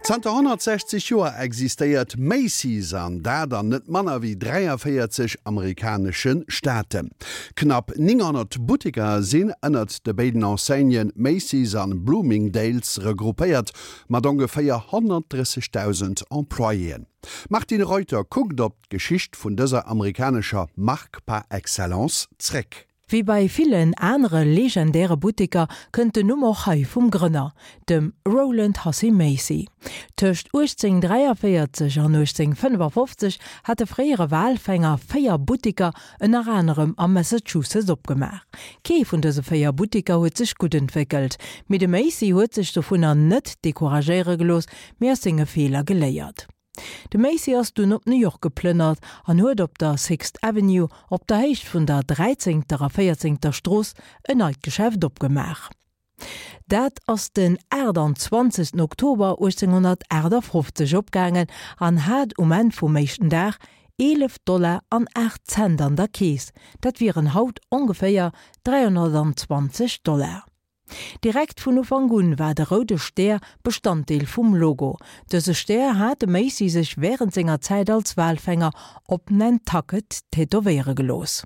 Zanter 160 Joer existéiert Macy's, an dat an net manner wéi 43 amerikanesche Staaten. Knapp 900 Butteker sinn ënnert de béiden Enseignen Macy's an Bloomingdale's regroupéiert, mat ongeféier 130.000 Employéen. D'Martine Reuter kuckt op d'Geschicht vun dëser amerikanescher Mark par excellence zréck. Wéi bei villen anere legendäre Butteker kënnt den Numm och hei vum Grënner, dem Rowland Hussey Macy. Tëscht 1843 an 1855 hat de fréiere Walfänger 4 Butteker ënner anerem am Massachusetts opgemaach. Kee vun dëse 4 Butteker huet sech gutt entwéckelt, mee de Macy huet sech dovunner net decouragéiere gelooss, mee aus senge Feeler geléiert. De Macy ass dunn op New York geplënnert an huet op der Sixth Avenue, op der Héicht vun der Dräizéngter a Véierzéngter Strooss, en neit Geschäft opgemaach. Dat ass den 28 Oktober 1858 opgaangen an hat um Enn vum éischten Dag 11 Dollar an 8 Cent an der Keess, dat wieren haut ongeféier 320 Dollar. Direkt vun Ufank un war de roude Stär Bestanddeel vum Logo. Dëse Stär hat de Macy sech wärend senger Zäit als Walfänger op Nantucket tätowéiere gelooss.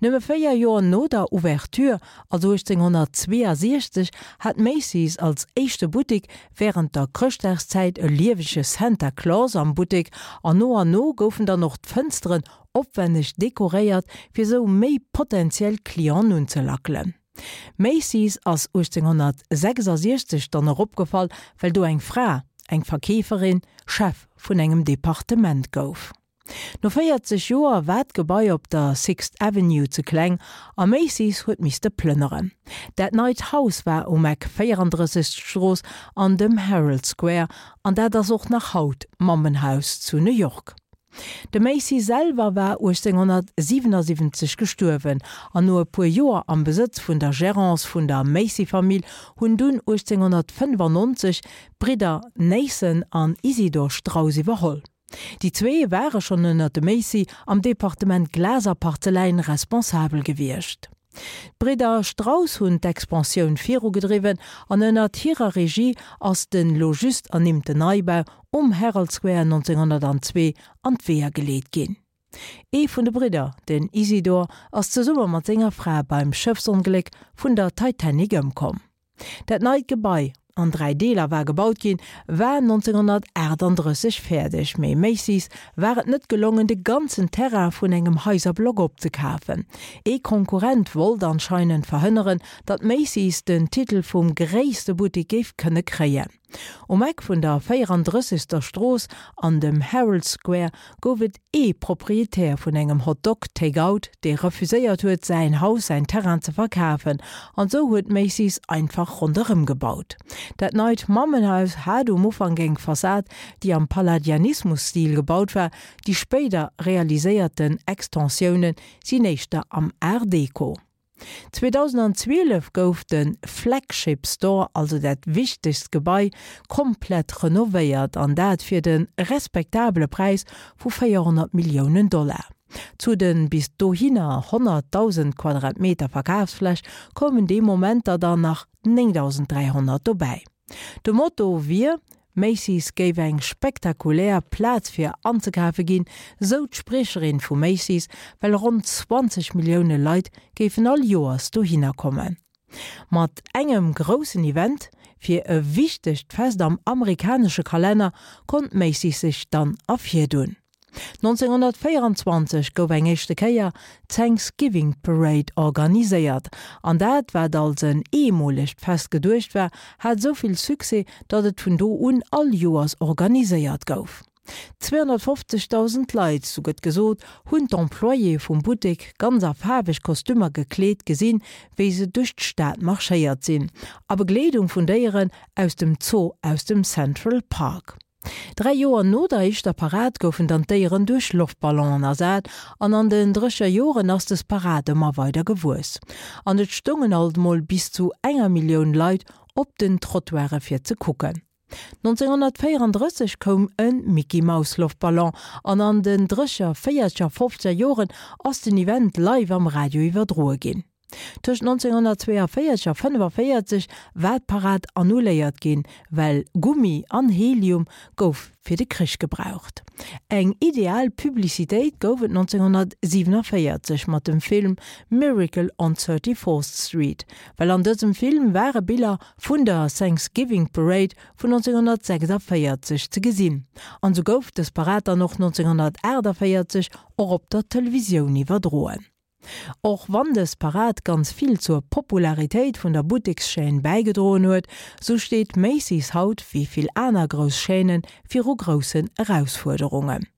Nëmme 4 Joer no der Ouverture, also 1862, hat Macy's als éischte Buttek wärend der Chrëschtdagszäit e liewege Santa Claus am Buttek an no an no goufen dann och d'Fënsteren opwenneg dekoréiert, fir sou méi potentiell Clienten unzelackelen. Macy's ass 1866 dann och opgefall, well do eng Fra, eng Verkeeferin, Chef vun engem Departement gouf. No 40 Joer war d'Gebai op der Sixth Avenue ze kleng a Macy's huet misste plënneren. Dat neit Haus war um Eck 34. Strooss an dem Herald Square an dat ass och nach haut d'Mammenhaus zu New York. De Macy selwer war 1877 gestuerwen an no e puer Joer am Besëtz vun der Gerance vun der Macy-Famill hunn dunn 1895 d'Bridder Nathan an Isidor Straus iwwerholl. Déi zwee ware schonn ënner dem Macy am Departement Glas a Parzeläin responsabel gewiescht. D'Bridder Strauss hunn d'Expansioun virugedriwwen an ënnert hirer Regie ass den lo just ernimmten Neibau um Herald Square 1902 an d'Weeër geleet ginn. Ee vun de Bridder, den Isidor, ass zesumme mat senger Fra beim Schëffsongléck vun der Titanic ëmkomm. Dat neit Gebai, an 3 Deeler war gebaut ginn, war 1938 fäerdeg, mee Macy's war et net gelongen de ganzen Terrain vun engem Haiserblock opzekafen. Ee Konkurrent wollt anscheinend verhënneren, datt Macy's den Titel vum gréisste Buttek géif kënne kréien. Um Eck vun der 34. Strooss an dem Herald Square gouf et ee Proprietär vun engem Hot Dog Take Out, dee refuséiert huet, säin Haus, säin Terrain ze verkafen. An esou huet Macy's einfach ronderëm gebaut. Dat neit Mammenhaus hat um Ufank eng Fassad, déi am Palladianismus-Stil gebaut war, déi spéider realiséierten Extensioune sinn éischter am Art Deco. 2012 gouf de Flagship Store, also dat wichtegst Gebai, komplett renovéiert an dat fir de respektabele Präis vu 400 Milliounen Dollar. Zu de bis dohinner 100.000 Quadratmeter Verkafsfläch koumen dee Moment der dann nach 9.300 dobäi. De Motto wier, Macy's géif eng spektakulär Plaz fir anzekafe ginn, sou d'Spriecherin vu Macy's, well ronn 20 Millioune Leit géifen all Joers dohinner kommen. Mat engem groussen Event fir e wichtegt Fest am amerikanesche Kalenner konnt Macy's sech dann ervirdunn. 1924 gouf eng éischte Kéier d'Thanksgiving Parade organiséiert, an dat, wat als en eemolegt Fest geduecht war, hat esou vill Succès, datt et vun do un all Joers organiséiert gouf. 250.000 Leit, sou gëtt gesot, hunn d'Employéë vum Buttek ganz a faarweg Kostümer gekleet gesinn, wéi se duerch d'Stad marschéiert sinn, a Begleedung vun Déieren aus dem Zoo aus dem Central Park. Dräi Joer no der éischter Parad goufen dann d'Déieren duerch Loftballonen ersat an an den drécher Joren ass des Parad ëmmer weider gewuess an et stoungen alt mol bis zu enger Millioun Leit op den Trottoire fir ze kucken. 1934 koum e Mickey-Maus-Loftballon an an den drécher véierzeger, fofzeger Joren ass den Event live am Radio iwwerdroe ginn. Tëscht 1942 a 45 war d'Parad annuléiert ginn, well Gummi an Helium gouf fir de Krich gebraucht. Eng ideal Publicitéit gouf et 1947 mat dem Film Miracle on 34th Street, well an dësem Film ware Biller vun der Thanksgiving Parade vun 1946 ze gesinn, an sou gouf dës Parad dann och 1948 och op der Televisioun iwwerdroen. Och wann dës Parad ganz vill zur Popularitéit vun der Buttekschaîne bäigedroen huet, sou steet Macy's haut, wéi vill aner grouss Chaînen, viru groussen Erausfuerderungen.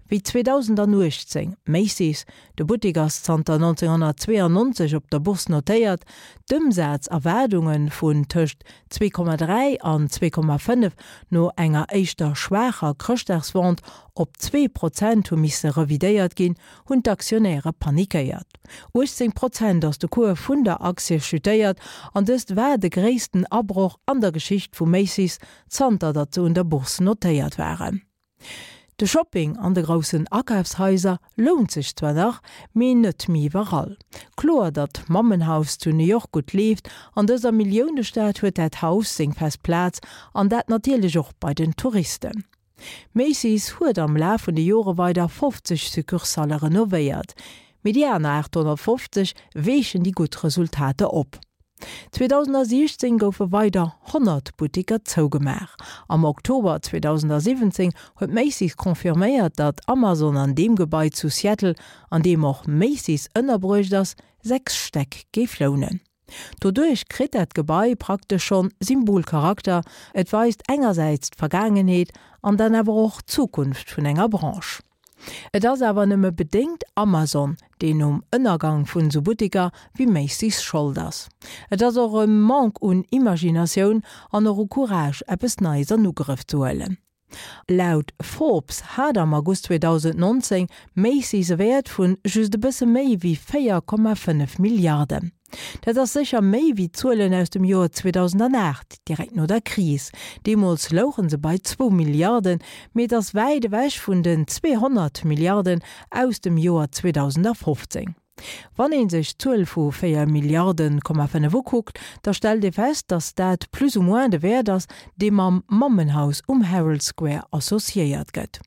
Wéi 2018 Macy's, de Buttek ass zanter 1992 op der Bourse notéiert, d'Ëmsazerwaardunge vun tëscht 2,3 an 2,5 no enger éischter schwaacher Chrëschtdagsvente op 2 Prozent hu misse revidéiert ginn, hunn d'Aktionäre panikéiert. 18 Prozent ass de Cours vun der Aktie chutéiert an dëst war de gréissten Abroch an der Geschicht vu Macy's zanter datt se un der Bourse notéiert waren. De Shopping an de groussen Akafshaiser lount sech zwar nach, mee net méi iwwerall. Kloer, datt d'Mammenhaus zu New York gutt leeft, an dëser Milliounestad huet dat Haus seng fest Plaz an dat natierlech och bei den Touristen. Macy's huet am Laf vun de Jore weider 50 Succursalle renovéiert, mee déi aner 850 weechen déi gutt Resultater op. 2016 goufe weider 100 Butteker zougemaach. Am Oktober 2017 huet Macy's confirméiert, datt Amazon an deem Gebai zu Seattle, an deem och Macy's ënnerbruecht ass, 6 Stäck géif lounen. Doduerch kritt dat Gebai praktesch schonn Symbolcharakter, et weist engersäits d'Vergaangenheet an dann awer och d'Zukunft vun enger Branche. Et ass awer nëmme bedéngt Amazon, deen um Ënnergang vun esou Butteker wéi Macy's Schold ass. Et ass och e Manque un Imaginatioun an och u Courage eppes Neies an Ugrëff ze huelen. Laut Forbes hat am August 2019 Macy's e Wäert vun just e bësse méi wéi 4,5 Milliarden. Dat ass sécher méi wéi d'Zuelen aus dem Joer 2008, direkt no der Kris. Deemools louche se bei zwou Milliarden, mee et ass wäit ewech vun den 200 Milliarden aus dem Joer 2015. Wann ee sech d'Zuel vu 4 Milliarden, 5 ukuckt, da stellt ee fest, datt dat plus ou moins de Wäert ass, dee mam Mammenhaus um Herald Square associéiert gëtt.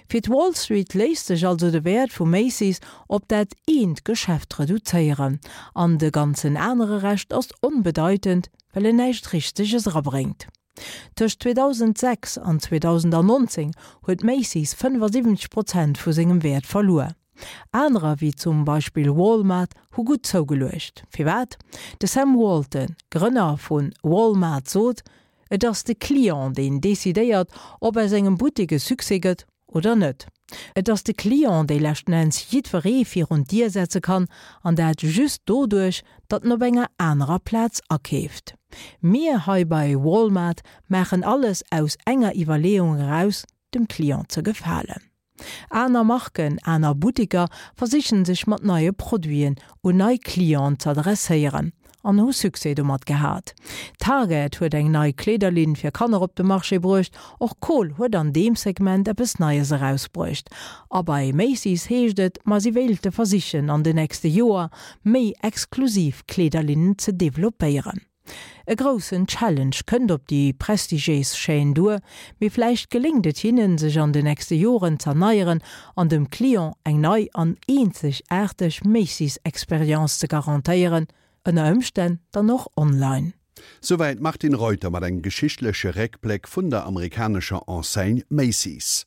Fir d'Wall Street léisst sech also de Wäert vu Macy's op dat eent Geschäft reduzéieren, an de ganzen anere Rescht ass onbedeitend, well en näischt Richteges erabréngt. Tëscht 2006 an 2019 huet Macy's 75 Prozent vu sengem Wäert verluer. Anerer, wéi zum Beispill Walmart, hu gutt zougeluecht. Firwat? De Sam Walton, Grënner vu Walmart, sot, Et ass de Client, deen decidéiert, ob aus engem Buttek e Succès gëtt oder net. Et ass de Client, dee leschten Enns jiddweree virun d'Dier setze kann, an dat just doduerch, datt en op enger anerer Plaz akeeft. Mir hei bei Walmart maachen alles aus enger Iwwerleeung eraus, dem Client ze gefalen. Aner Marken, aner Butteker versichen sech mat neie Produiten un nei Clienten z'adresséieren an hu Succès domat gehat. Target huet eng nei Kleederlinn fir Kanner op de Marché bruecht, och Kohl huet an deem Segment eppes Neies erausbruecht. A bei Macy's heescht et, ma si wéilte versichen an de nächste Joer méi exklusiv Kleederlinnen ze developpéieren. E groussen Challenge kënnt op déi prestigiéis Chaîne duer, mee vläicht geléngt et hinnen, sech an de nächste Joren z'erneieren an dem Client eng nei an eenzegaarteg Macy's-Experience ze garantéieren, ënner Ëmstänn dann och online. Souwäit d'Martine Reuter mat engem geschichtleche Réckbléck vun der amerikanescher Enseigne Macy's.